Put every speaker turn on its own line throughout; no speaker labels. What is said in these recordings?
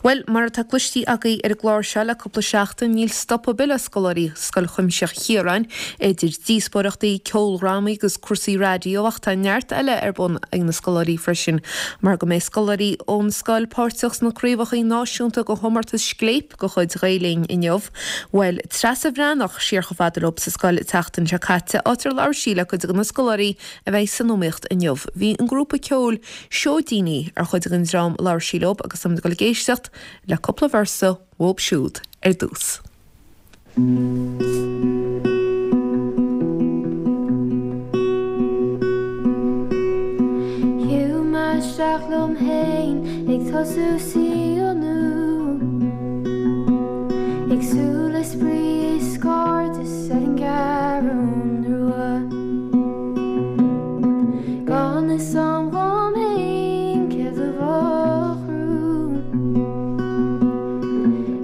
Bhuel, mar atá cloistí agaibh ar an gclár seo le cúpla seachtain, níl stop ar bith le scoláirí Scoil Chuimsitheach Chiaráin, idir díospóireachtaí, ceoldrámaí agus cúrsaí raidió ach tá neart eile ar bun ag na scoláirí freisin mar go mbeidh scoláirí ón scoil páirteach sna craobhacha náisiúnta de chomórtas Scléip de chuid Ghael Linn inniu. Bhuail Treasa Bhreathnach siar chomh fada leo sa scoil an tseachtain seo caite, áit ar labhair sí le cuid de na scoláirí a bheidh san iomaíocht inniu. Bhí an grúpa ceoil Seoidíní ar chuid den dream a labhair sí leo agus táimid ag dul ag éisteacht le cúpla véarsa uathu siúd ar dtús.
Shiúil mé isteach liom fhéin ag tosú saol nua Ag súil le spraoi is cairdeas ar an gCeathrú Rua. Gan fhios a'm dhom fhéin céard a bheadh romham.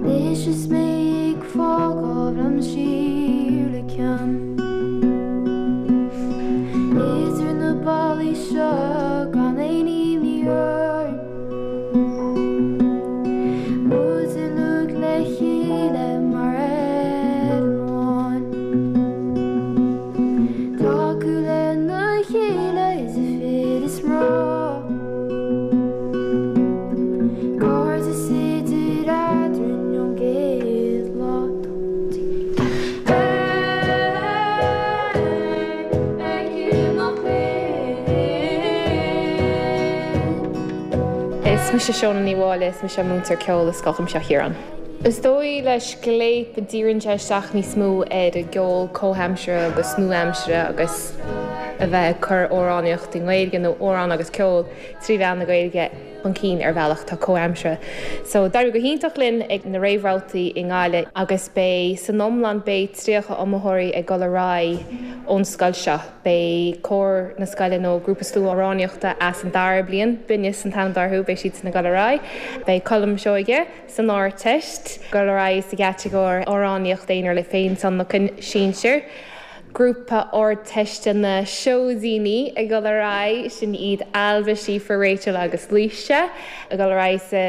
Anois is mé ag fágáil liom siar le cion. Idir na ballaí seo gan aon imní orainn. Muid uilig le chéile mar fhoireann amháin. Tacú lena chéile idir fir is mná. Cairdeas idir eadrainn ón gcéad lá.
Is mise Shóna Ní Mháille, is mise múinteoir ceoil i Scoil Chuimsitheach Chiaráin. Is dóigh le Scléip díríonn sé isteach níos mó ar an gceol comhaimseartha agus nua-aimseartha agus a bheith ag cur amhránaíocht i nGaeilge nó amhrán agus ceol trí mheán na Gaeilge chun cinn ar bhealach atá comhaimseartha. So d'éirigh go hiontach linn ag na réamhbhabhtaí i nGaillimh agus beidh san iomlán beidh 30 iomaitheoirí ag dul ar aghaidh ón scoil seo. Beidh cór na scoile nó grúpa sluaamhránaíochta as an dara bliain, Binneas an t-ainm atá orthu, beidh siadsan ag dul ar aghaidh. Beidh Colm Seoige san Ardteist ag dul ar aghaidh sa gcatagóir amhránaíocht aonair le féintionlacan sinsir. Grúpa Ardteiste na Seoidíní ag dul ar aghaidh, sin iad Ailbhe, Síofra, Rachel agus Laoise ag dul ar aghaidh sa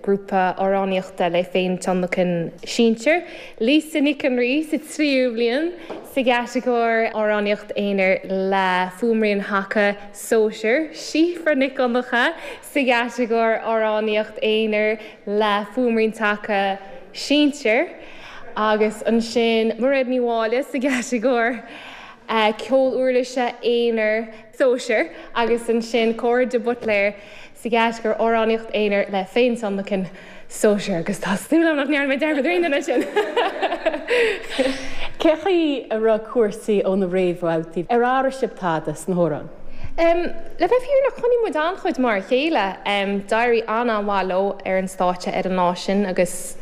ghrúpa amhránaíochta le féintionlacan sinsir. Lisa Nic an Rí sa tríú bliain sa gcatagóir amhránaíocht aonair le fuaimrian thaca sóisir. Síofra Nic Dhonncha sa gcatagóir amhránaíocht aonair le fuaimrian taca sinsir agus ansin Mairéad Ní Mháille sa gcatagóir ceol uirlise aonair sóisir agus ansin Córa de Buitléir sa gcatagóir amhránaíocht aonair le féintionlacan sóisir agus tá súil agam nach ndearna mé dearmad ar aon duine ansin.
Cé chaoi a raibh cúrsaí ó na réamhbhabhtaí? Ar athraigh sibh tada sna hamhráin?
Le bheith fírinneach, choinnigh muid an-chuid mar a chéile. D'éirigh an-an-mhaith leo ar an stáitse ar an lá sin agus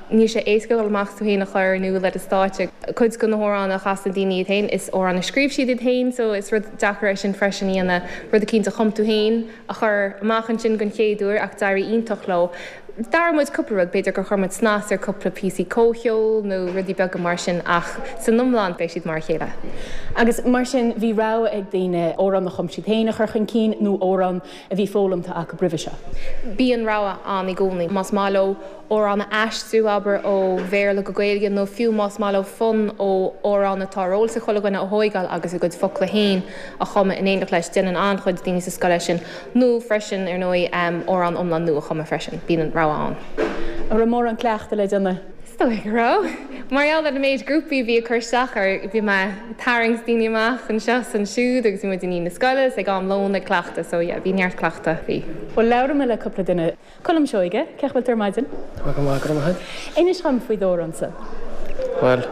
níl sé éasca dul amach tú féin a chur in iúl ar an stáitse. Cuid de na hamhráin a chasann daoine iad féin, is amhráin a scríobh siad iad féin so is rud deacair é sin freisin a dhéanamh, rud eicínt a chum tú féin a chur amach ansin den chéad uair ach d'éirigh iontach leo. D'athraigh muid cúpla rud, b'fhéidir gur chuir muid snas ar cúpla píosaí comhcheoil nó rudaí beaga mar sin ach san iomlán beidh siad mar a chéile.
Agus mar sin bhí rogha ag daoine amhrán a chum siad féin a chur chun cinn nó amhrán a bhí foghlamtha acu roimhe seo.
Bíonn rogha ann i gcónaí. Más maith leo amhrán a aistriú, abair, ó Bhéarla go Gaeilge nó fiú más maith leo fonn ó amhrán atá ar eolas ag chuile dhuine a thóigeáil agus a gcuid focla féin a chumadh in éineacht leis. Déanann an-chuid daoine sa scoil é sin. Nó freisin, ar ndóigh, amhrán iomlán nua a chumadh freisin. Bíonn an rogha ann.
An raibh mórán cleachtaidh le déanamh?
Is dóigh go raibh. Mar gheall ar an méid grúpaí a bhí ag cur isteach air, bhí mé ag tarraingt daoine amach anseo is ansiúd agus bhí muid i ndiaidh na scoile is ag am lóin ag cleachtadh so yeah, bhí neart cleachtadh, bhí.
Bhuel, labhróidh mé le cúpla duine. Colm Seoige, cén chaoi a bhfuil tú ar maidin?
Tá mé go maith, go raibh maith
agat. Inis dhom faoi d'amhrán-sa.
Bhuel,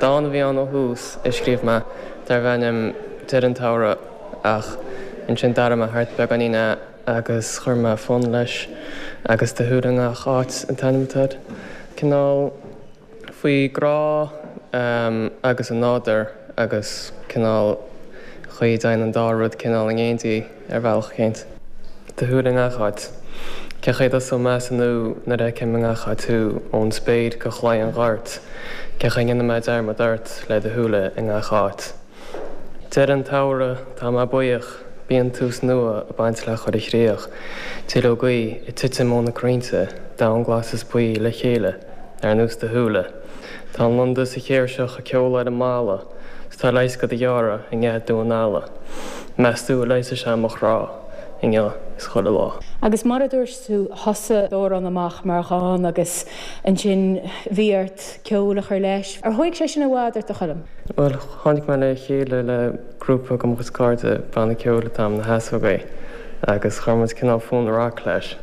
dán a bhí ann ó thús a scríobh mé darbh ainm Deireadh an tSamhraidh ach ansin d'athraigh mé thart beagáinín é agus chuir mé fonn leis agus Do shúile i ngach áit an t-ainm atá air. Cineál. faoi grá agus an nádúr agus cineál chaoi a dtéann an dá rud cineál in éindí ar bhealach eicínt. Do shúile i ngach áit. Cén chaoi a dtosóidh mé as an nua nuair a fheicim i ngach áit thú, ón spéir go chlaí an ghoirt, cén chaoi a ndéanfaidh mé dearmad ort le do shúile i ngach áit. Deireadh an tsamhraidh, tá mé buíoch. Bíonn tús nua ag baint le chuile chríoch. Duilleogaí ag titim ó na crainnte, Domhan glas is buí le chéile ar nós do shúile. Tá an lunda is an chéirseach ag ceol ar an mballa 's tá leigheas do do ghearradh i ngeath Dún Ealla. Meas tú an leigheasfaidh sé mo chrá inniu is chuile lá.
Agus mar a dúirt tú, thosaigh d'amhrán amach mar dhán agus ansin bhí ort ceol a chur leis. Ar thóig sé sin i bhfad ort, a Choilm?
Bhuel, tháinig mé le chéile le grúpa de mo chuid cairde, banna ceoil atá ann, Na hEasógaí, agus chuir muid cineál fonn rac leis.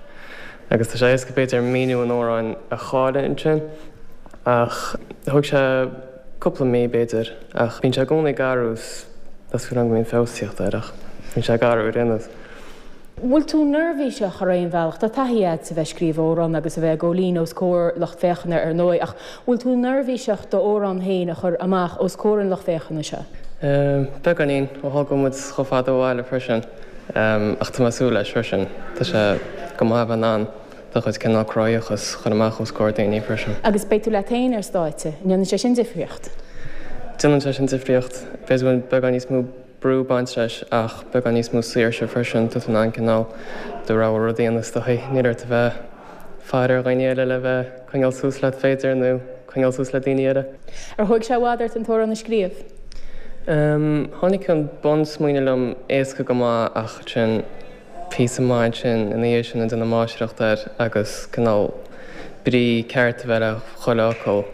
Agus tá sé éasca b'fhéidir míniú an amhráin a chailleadh ansin, ach thóg sé cúpla mí b'fhéidir, ach bíonn sé i gcónaí ag athrú, tá súil agam go mbíonn feabhas ag teacht air ach bíonn sé ag athrú ar aon nós.
Bhfuil tú neirbhíseach ar aon bhealach? Tá taithí agat a bheith ag scríobh amhrán agus a bheith ag gabháil fhoinn os comhair lucht féachana ar ndóigh, ach bhfuil tú neirbhíseach d'amhrán féin a chur amach os comhair an lucht féachana seo?
Beagáinín, ó tharla go bhfuil muid chomh fada ó bhaile freisin. Ach tá mé ag súil leis freisin. Tá sé go maith a bheith in ann do chuid cineál cruthaitheachas a chur amach os comhair daoine freisin.
Agus beidh tú leat féin ar stáitse. An ndéanann sé sin difríocht?
Déanann sé sin difríocht. B'fhéidir go bhfuil beagán níos mó brú ag baint leis ach beagán níos mó saoirse freisin, tá tú in ann cineál do rogha rud a dhéanamh is dóigh. Níl ort a bheith ag faire ar dhaoine eile le bheith ag coinneáil suas leat b'fhéidir nó coinneáil suas le daoine eile.
Ar thóig sé i bhfad ort an t-amhrán a scríobh?
Tháinig an bunsmaoineamh liom éasca go maith ach ansin píosa maith ansin ina dhiaidh sin ag déanamh máistreacht air agus cineál brí ceart a bheith le chuile fhocal.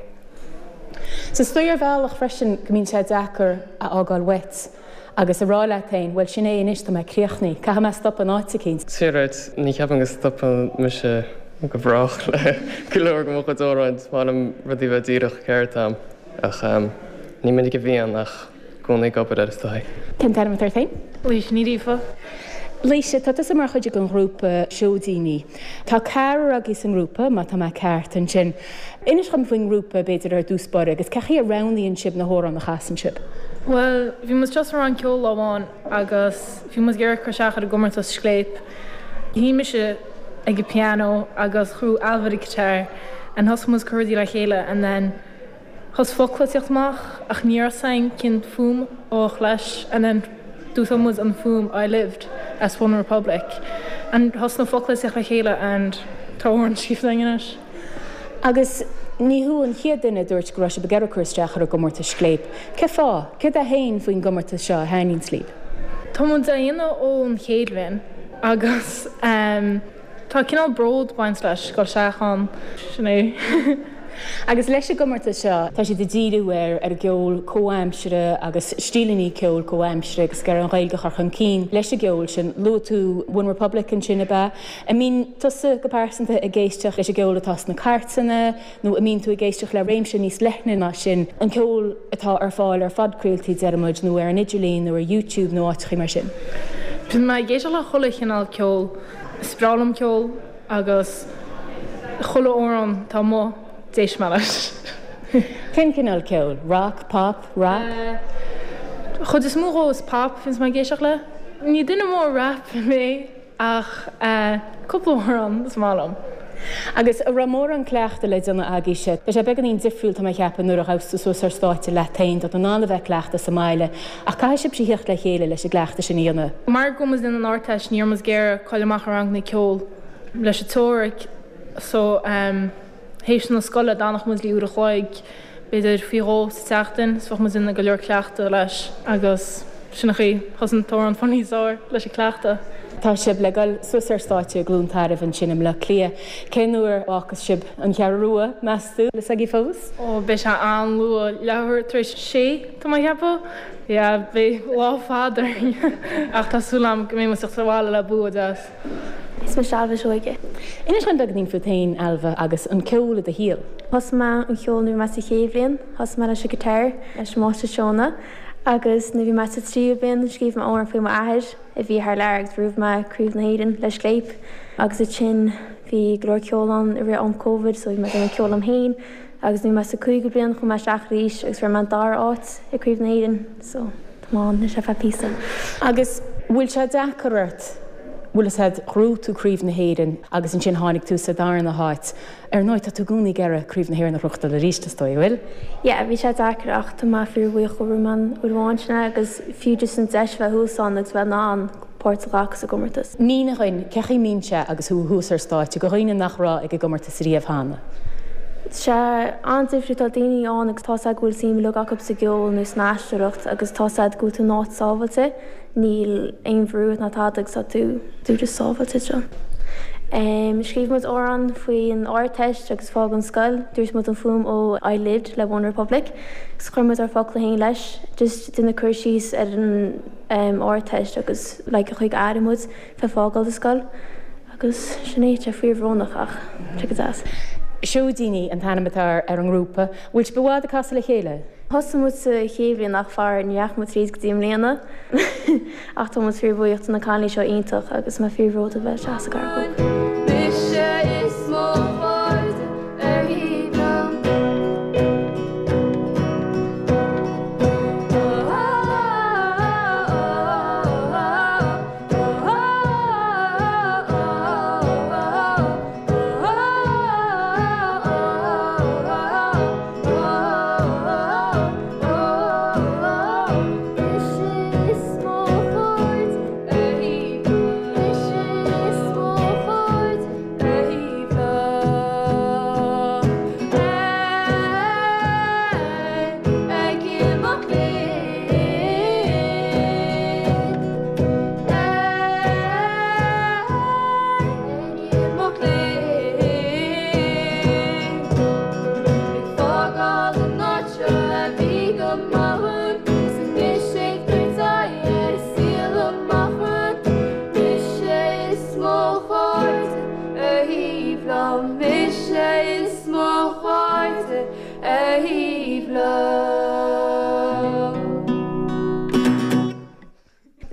So is dóigh ar bhealach freisin go mbíonn sé deacair a fhágáil uait agus a rá leat féin, bhuel sin é anois, tá mé críochnaithe, caithfidh mé stop in áit eicínt.
Sea, right, ní cheapaim go stopann mise go brách le go leor de mo chuid amhráin, is maith liom rudaí a bheith díreach ceart a'm ach ní minic a bhíonn ach i gcónaí ag obair air is dóigh.
Cén t-ainm atá ort féin?
Laoise Ní Ghríofa.
Laoise, tá tusa mar chuid den ghrúpa Seoidíní. Tá ceathrar agaibh sa ngrúpa, má tá mé ceart ansin. Inis dhom faoin ngrúpa, b'fhéidir, ar dtús báire, agus cén chaoi a roghnaíonn sibh na hamhráin a chasann sibh?
Bhuel, bhí muid just sa rang ceoil lá amháin agus bhí muid ag iarraidh cur isteach ar an gcomórtas Scléip. Sheinn mise ag an piano agus chuaigh Ailbhe ar an guitar and thosaigh muid ag cur rudaí le chéile and then Thosaigh focla ag tíocht amach ach ní raibh 's againn cén fuaim a bheadh leis and then d'úsáid muid an fuaim I lived as One Republic and thosaigh na focla ag tíocht le chéile and tá amhrán scríofa againn anois.
Agus ní thú an chéad duine a dúirt go raibh sibh ag iarraidh cur isteach ar an gcomórtas Scléip. Cén fáth? Céard é féin faoin gcomórtas seo a thaitníonns libh?
Tá muid á dhéanamh ón chéad bhliain agus ehm. Tá cineál bród baint leis, dul isteach ann, sin é.
Agus leis an gcomórtas seo, tá siad ag díriú ar ar an gceol comhaimseartha agus stíleanna ceoil comhaimseartha agus ag iarraidh an Ghaeilge a chur chun cinn leis an gceol sin. Luaigh tú One Republic ansin, ab ea? An mbíonn tusa go pearsanta ag éisteacht leis an gceol atá sna cairteanna nó an mbíonn tú ag éisteacht le réimse níos leithne ná sin, an ceol atá ar fáil ar phodchraoltaí, deir muid, nó ar an idirlíon nó ar YouTube nó áiteachaí mar sin?
Bíonn mé ag éisteacht le chuile chineál ceoil. Is breá liom ceol agus chuile amhrán atá amuigh, d'éist mé leis.
Cén cineál ceoil? Rock, pop, rap?
Chuid is mó dhó is pop a bhíonns mé ag éisteacht le. Ní duine mór rap mé ach cúpla amhrán is maith liom.
Agus an raibh mórán cleachtaidh le déanamh agaibhse? Tá sé beagáinín difriúil tá mé a cheapadh nuair a ghabhas tú suas ar stáitse leat féin, tá tú in ann a bheith ag cleachtadh sa mbaile Ach caithfidh sibhse theacht le chéile leis an gcleachtadh sin a dhéanamh.
Mar go bhfuil muid ag déanamh an Ardteist ní raibh muid ag iarraidh caill amach ar ranganna ceoil leis an teoiric so théis na scoile d'fhanfadh muid le uair a chloig b'fhéidir faoi dhó sa tseachtain so bheadh muid ag déanamh go leor cleachtadh leis agus sin an chaoi thosaigh an t-amhrán fáil níos fearr leis an cleachtadh.
Tá sibh le dul suas ar stáitse i gCluain Tairbh ansin i mBleá Cliath. Cén uair a fhágfas sibh an Cheathrú Rua, meas tú? Bhfuil fhios agaibh fós?
Ó beidh sé an-luath, leathuair tar éis sé. Tá mé ag ceapadh, yeah, beidh lá fada orainn ach tá súil agam go mbeidh muid ag teacht abhaile le bua deas.
Is mise Ailbhe Seoige.
Inis dom beagáinín fút féin, Ailbhe, agus an ceol i do shaol.
Thosaigh mé an cheol nuair a bhí mé sa chéad bhliain. Thosaigh mé leis an guitar leis an Máistir Seónna agus nuair a bhí mé sa tríú bliain scríobh mé amhrán faoi m'athair a bhí thar lear agus bhuaigh mé Craobh na hÉireann le Scléip agus ansin bhí go leor ceol ann i rith am Covid so bhí mé ag déanamh ceol liom féin Agus nuair a bhí mé sa cúigiú bliain chuaigh mé isteach arís agus fuair mé an dara áit i Craobh na hÉireann so tá mé ann anois ar feadh píosa.
Agus bhfuil sé deacair ort, bhfuil fhios a'd, ghnóthaigh tú Craobh na hÉireann agus ansin tháinig tú sa darna háit. Ar ndóigh tá tú i gcónaí ag iarraidh Craobh na hÉireann a ghnóthachtáil arís is dóigh, an bhfuil?
Yeah, bhí sé deacair ach tá mé fíor bhuíoch go raibh mé ann uair amháin sin agus fiú just an deis a bheith thuas ann agus bheith in ann. páirt a ghlacadh sa gcomórtas.
Mínigh dhuinn, cé chaoi mbíonn sé agus thú thuas ar stáitse, do dhaoine nach raibh ag an gcomórtas riamh cheana?
Tá sé an-difriúil, tá daoine ann agus tá's a'd go bhfuil suim uilig acu sa gceol nó san aisteoireacht agus tá's a'd go bhfuil tú in áit sábhailte, níl aon bhrú ort ná tada agus tá tú tú just sábhailte anseo. Scríobh muid amhrán faoin Ardteist agus fágáil an scoil, d'úsáid muid an fuaim ó I Lived le One Republic agus chuir muid ár focla féin leis, just déanamh cur síos ar an Ardteist agus like an chaoi gur airigh muid fé fágáil an scoil agus sin é, tá sé fíorbhrónach ach tá sé go deas.
Seoidíní an t-ainm atá ar an ngrúpa. Bhfuil sibh i bhfad ag casadh le chéile?
Thosaigh muid sa chéad bhliain ach faraor ní dheachaigh muid tríd go dtí i mbliana ach tá muid fíorbhuíoch de na cailíní seo iontach agus mé fíorbhródúil bheith isteach sa ghrúpa. Mise is mo chairde ar thaobh liom.
Ar thaobh liom.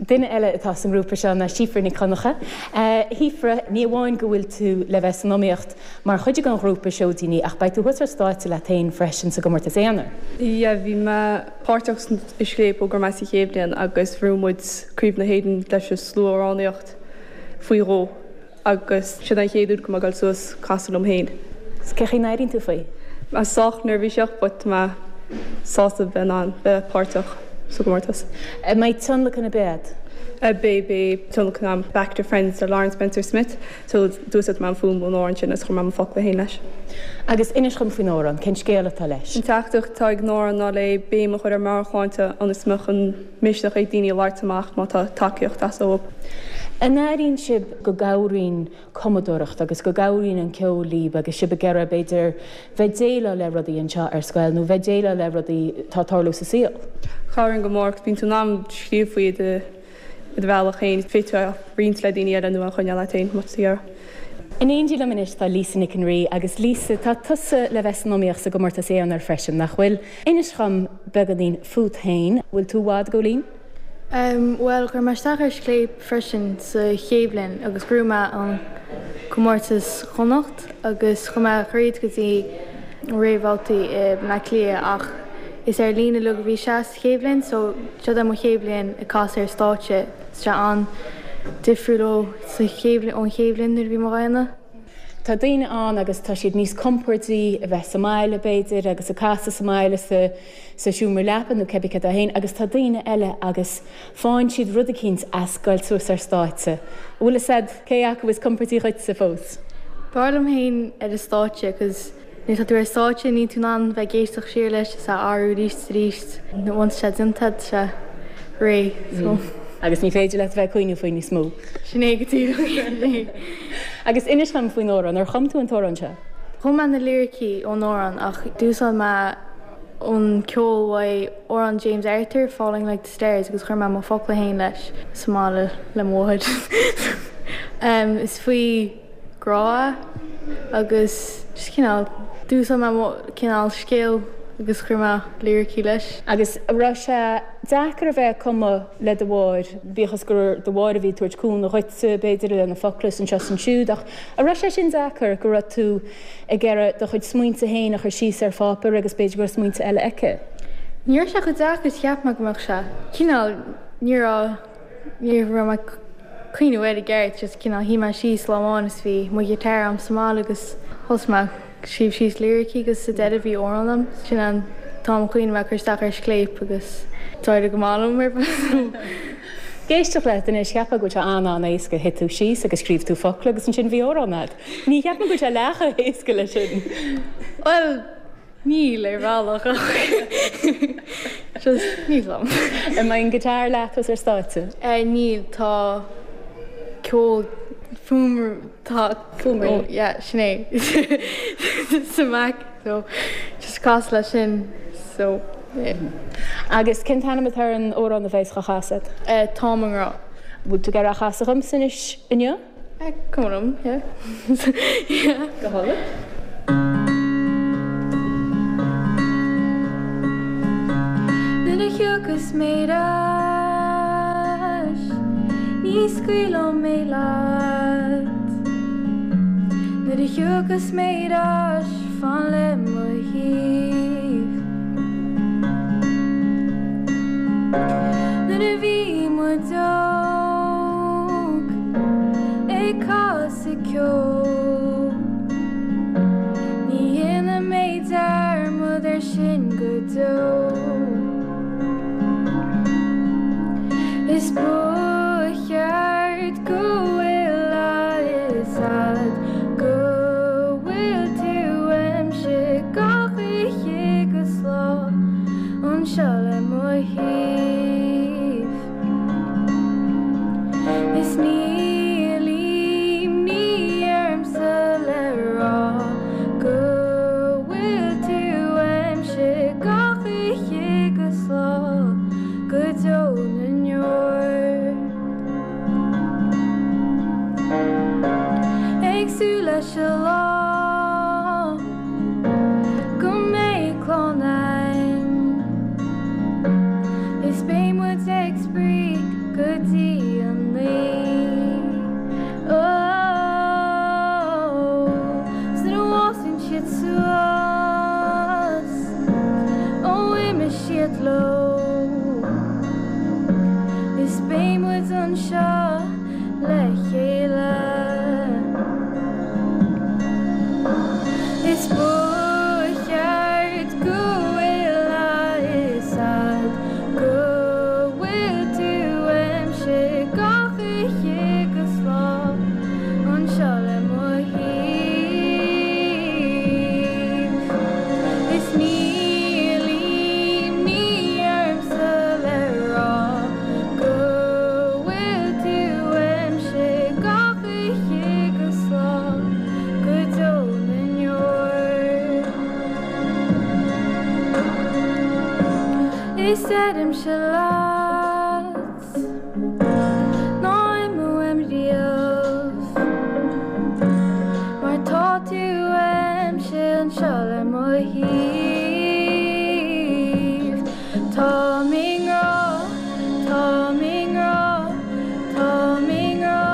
Duine eile atá sa ngrúpa seo ná Síofra Nic Dhonncha. A Shíofra, ní amháin go bhfuil tú le bheith san iomaíocht mar chuid den ghrúpa Seoidíní ach beidh tú thuas ar stáitse leat féin freisin sa gcomórtas aonair.
Yeah, bhí mé páirteach i Scléip ó go raibh mé sa chéad bhliain agus bhuaigh muid Craobh na hÉireann leis an slua-amhránaíocht faoi dhó. Agus sin an chéad uair go mbeidh mé ag dul suas casadh liom féin.
Cé chaoi n-airíonn tú faoi?
Mé sách neirbhíseach but tá mé sásta bheith in ann bheith páirteach sa gcomórtas.
An mbeidh tionlacan ar bith a'd?
Beidh, beidh tionlacan a'm Back to Friends le Lauren Spencer Smith so d'úsáid mé an fuaim ón amhrán sin agus chuir mé mo focla féin leis.
Agus inis dhom faoin amhrán, cén scéal atá leis?
An teachtaireacht atá ag an amhrán ná le béim a chur ar meabhairshláinte ionas go mbeadh an misneach ag daoine labhairt amach má tá tacaíocht ag teastáil uathu.
An airíonn sibh go gcabhraíonn cumadóireacht agus go gcabhraíonn an ceol libh agus sibh ag iarraidh, b'fhéidir, bheith déileáil le rudaí anseo ar scoil nó bheith déileáil le rudaí atá ag tarlú sa saol?
Cabhraíonn go mór agus bíonn tú in ann scríobh faoi i do bhealach féin. Féadfaidh tú é a roinnt le daoine eile nó a choinneáil leat féin má tá tú ag iarraidh.
In éindí liom anois tá Lisa Nic an Rí agus Lisa, tá tusa le bheith san iomaíocht sa gcomórtas aonair freisin, nach bhfuil? Inis dhom beagáinín fút féin. Bhfuil tú i bhfad ag dul linn?
Bhuel, chuir mé isteach ar Scléip freisin sa chéad bhliain agus ghnóthaigh mé an comórtas Chonnacht agus chuaigh mé thríd go dtí réamhbhabhtaí i mBleá Cliath ach is ar líne uilig a bhí sé sa chéad bhliain so seo é mo chéad bhliain ag casadh ar stáitse. Tá sé an-difriúil ó sa chéad ón chéad bhliain nuair a bhí mé á dhéanamh.
Tá daoine ann agus tá siad níos compordaí a bheith sa mbaile, b'fhéidir, agus ag casadh sa mbaile sa sa seomra leapa nó cibé cad é féin agus tá daoine eile agus faigheann siad rud eicínt as goil suas ar stáitse. An bhfuil fhios a'd cé acu is compordaí dhuitse fós?
B'fhearr liom féin ar an stáitse 'cause Nuair atá tú ar stáitse níl tú in ann bheith ag éisteacht siar leis is á athrú arís is arís. Once tá sé déanta tá sé réidh so.
Agus ní féidir leat a bheith ag cuimhneamh faoi níos mó.
Sin é go díreach.
Agus inis dom faoin amhrán, ar chum tú an t-amhrán seo?
Chum mé na liricí ón amhrán ach d'úsáid mé an ceol uaidh amhrán James Arthur, Falling Like the Stars agus chuir mé mo focla féin leis sa mbaile le mo mháthair. Is faoi. grá agus just cineál d'úsáid mé mo cineál scéal agus chuir mé liricí leis.
Agus an raibh sé deacair a bheith ag cumadh le do mháthair, bíodh is gur do mháthair a bhí ag tabhairt cúnamh dhuitse, b'fhéidir, le na focla is anseo is ansiúd, ach an raibh sé sin deacair, go raibh tú ag iarraidh do chuid smaointe féin a chur síos ar pháipéar agus b'fhéidir go raibh smaointe eile aici?
Ní raibh sé chomh deacair is a cheap mé go mbeadh sé. Cineál, ní raibh. Ní raibh mé ag cuimhneamh air i gceart, just cineál shuigh mé síos lá amháin is bhí mo ghiotár a'm sa mbaile agus thosaigh mé ag scríobh síos liricí agus sa deireadh bhí amhrán a'm. Sin an t-am a chuimhnigh mé cur isteach ar Scléip agus d'éirigh go maith liom ar fad.
Ag éisteacht leat anois, cheapfá go bhfuil sé an-an-éasca, shuigh tú síos agus scríobh tú focla agus ansin bhí amhrán agat. Ní cheapaim go bhfuil sé leath chomh héasca leis sin.
Bhuel, níl ar bhealach ach just níl 'fhios a'm.
An mbeidh an guitar leat thuas ar stáitse?
Níl, tá ceol fuaim tá
Fuaimrian.
yeah sin é sa Mac so just casadh leis sin so yeah.
Agus cén t-ainm atá ar an amhrán a bheas á chasadh
agat? Táim i ngrá.
Bhfuil tú ag iarraidh a chasadh dhomsa anois inniu?
Cuma liom yeah yeah.
Go hálainn.
Nuair a thiocfas mé ar ais, ní scaoilfidh mé leat. Nuair a thiocfas mé ar ais, fan le mo thaobh. Nuair a bhí muid óg, ag casadh ceoil, ní dhéanfaidh mé dearmad ar sin go deo. Is ba cheart go bhfuil a fhios a'd go bhfuil tú uaimse gach oíche 'gus lá anseo le mo thaobh. Is níl imní ormsa le rá go bhfuil tú uaimse gach oíche 'gus lá go deo na ndeor. Ag súil leis an lá go mbeidh clann a'inn is beidh muid ag spraoi go dtí an oíche. Oh, 's nuair a fhásann siad suas, oh imeoidh siad leo is beidh muid anseo le chéile. Is ba cheart go bhfuil a fhios a'd go bhfuil tú uaimse gach oíche 'gus lá anseo le mo thaobh. Is níl imní ormsa le rá go bhfuil tú uaimse gach oíche 'gus lá go deo na ndeor. Is deirimse leat ná imigh uaim riamh mar tá tú uaimse anseo le mo thaobh. Táim i ngrá, táim i ngrá. Táim i ngrá,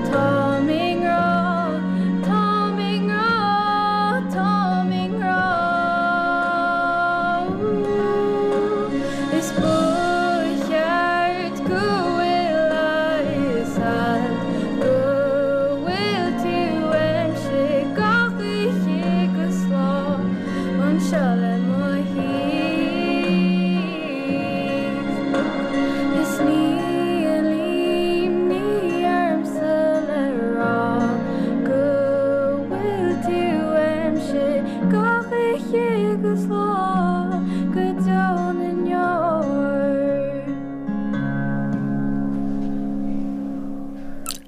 táim i ngrá, táim i ngrá, táim i ngrá. Is ba cheart go bhfuil a fhios a'd go bhfuil tú uaimse gach oíche 'gus lá anseo le mo thaobh. Is níl imní ormsa le rá go bhfuil tú uaimse gach oíche 'gus lá go deo na ndeor.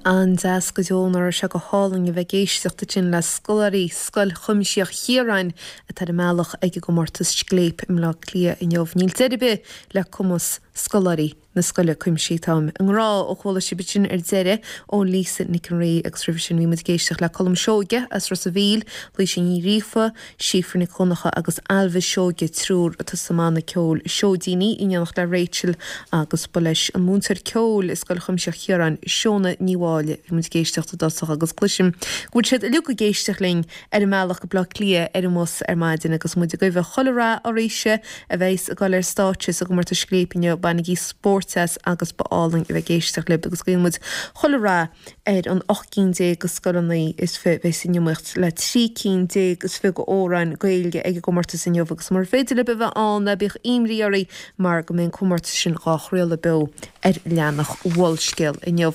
An-deas go deo nach raibh sé go hálainn a bheith ag éisteacht ansin le scoláirí Scoil Chuimsitheach Chiaráin atá ar a mbealach ag an gcomórtas Scléip i mBleá Cliath inniu. Níl deireadh ar bith le cumas scoláirí na scoile cuimsithí. Táim i ngrá ó chuala sibh sin ar deireadh ó Lisa Nic an Rí agus roimhe sin bhí muid ag éisteacht le Colm Seoige as Ros a' Mhíl, Laoise Ní Ghríofa, Síofra Nic Dhonncha agus Ailbhe Seoige, triúr atá sa mbanna ceoil Seoidíní, in éineacht le Rachel agus ba leis an múinteoir ceoil i Scoil Chuimsitheach Chiaráin, Seona Ní Mháille, bhí muid ag éisteacht i dtosach agus cloisim go bhfuil siad uilig ag éisteacht linn ar a mbealach go Bleá Cliath ar an mbus ar maidin agus muid ag guí chuile rath oraibhse a bheas ag dul ar stáitse sa gcomórtas Scléip inniu. Bainigí spórt. Mórteas agus ba álainn a bheith ag éisteacht libh agus guíonn muid chuile rath ar an 18 cinn de scoileanna is fi a bheidh san iomaíocht le 13 cinn is fi d'amhráin Gaeilge ag an gcomórtas inniu agus mura féidir libh a bheith ann ná bíodh imní oraibh mar go mbeidh an comórtas sin dhá chraoladh beo ar leathanach Mholscéal inniu.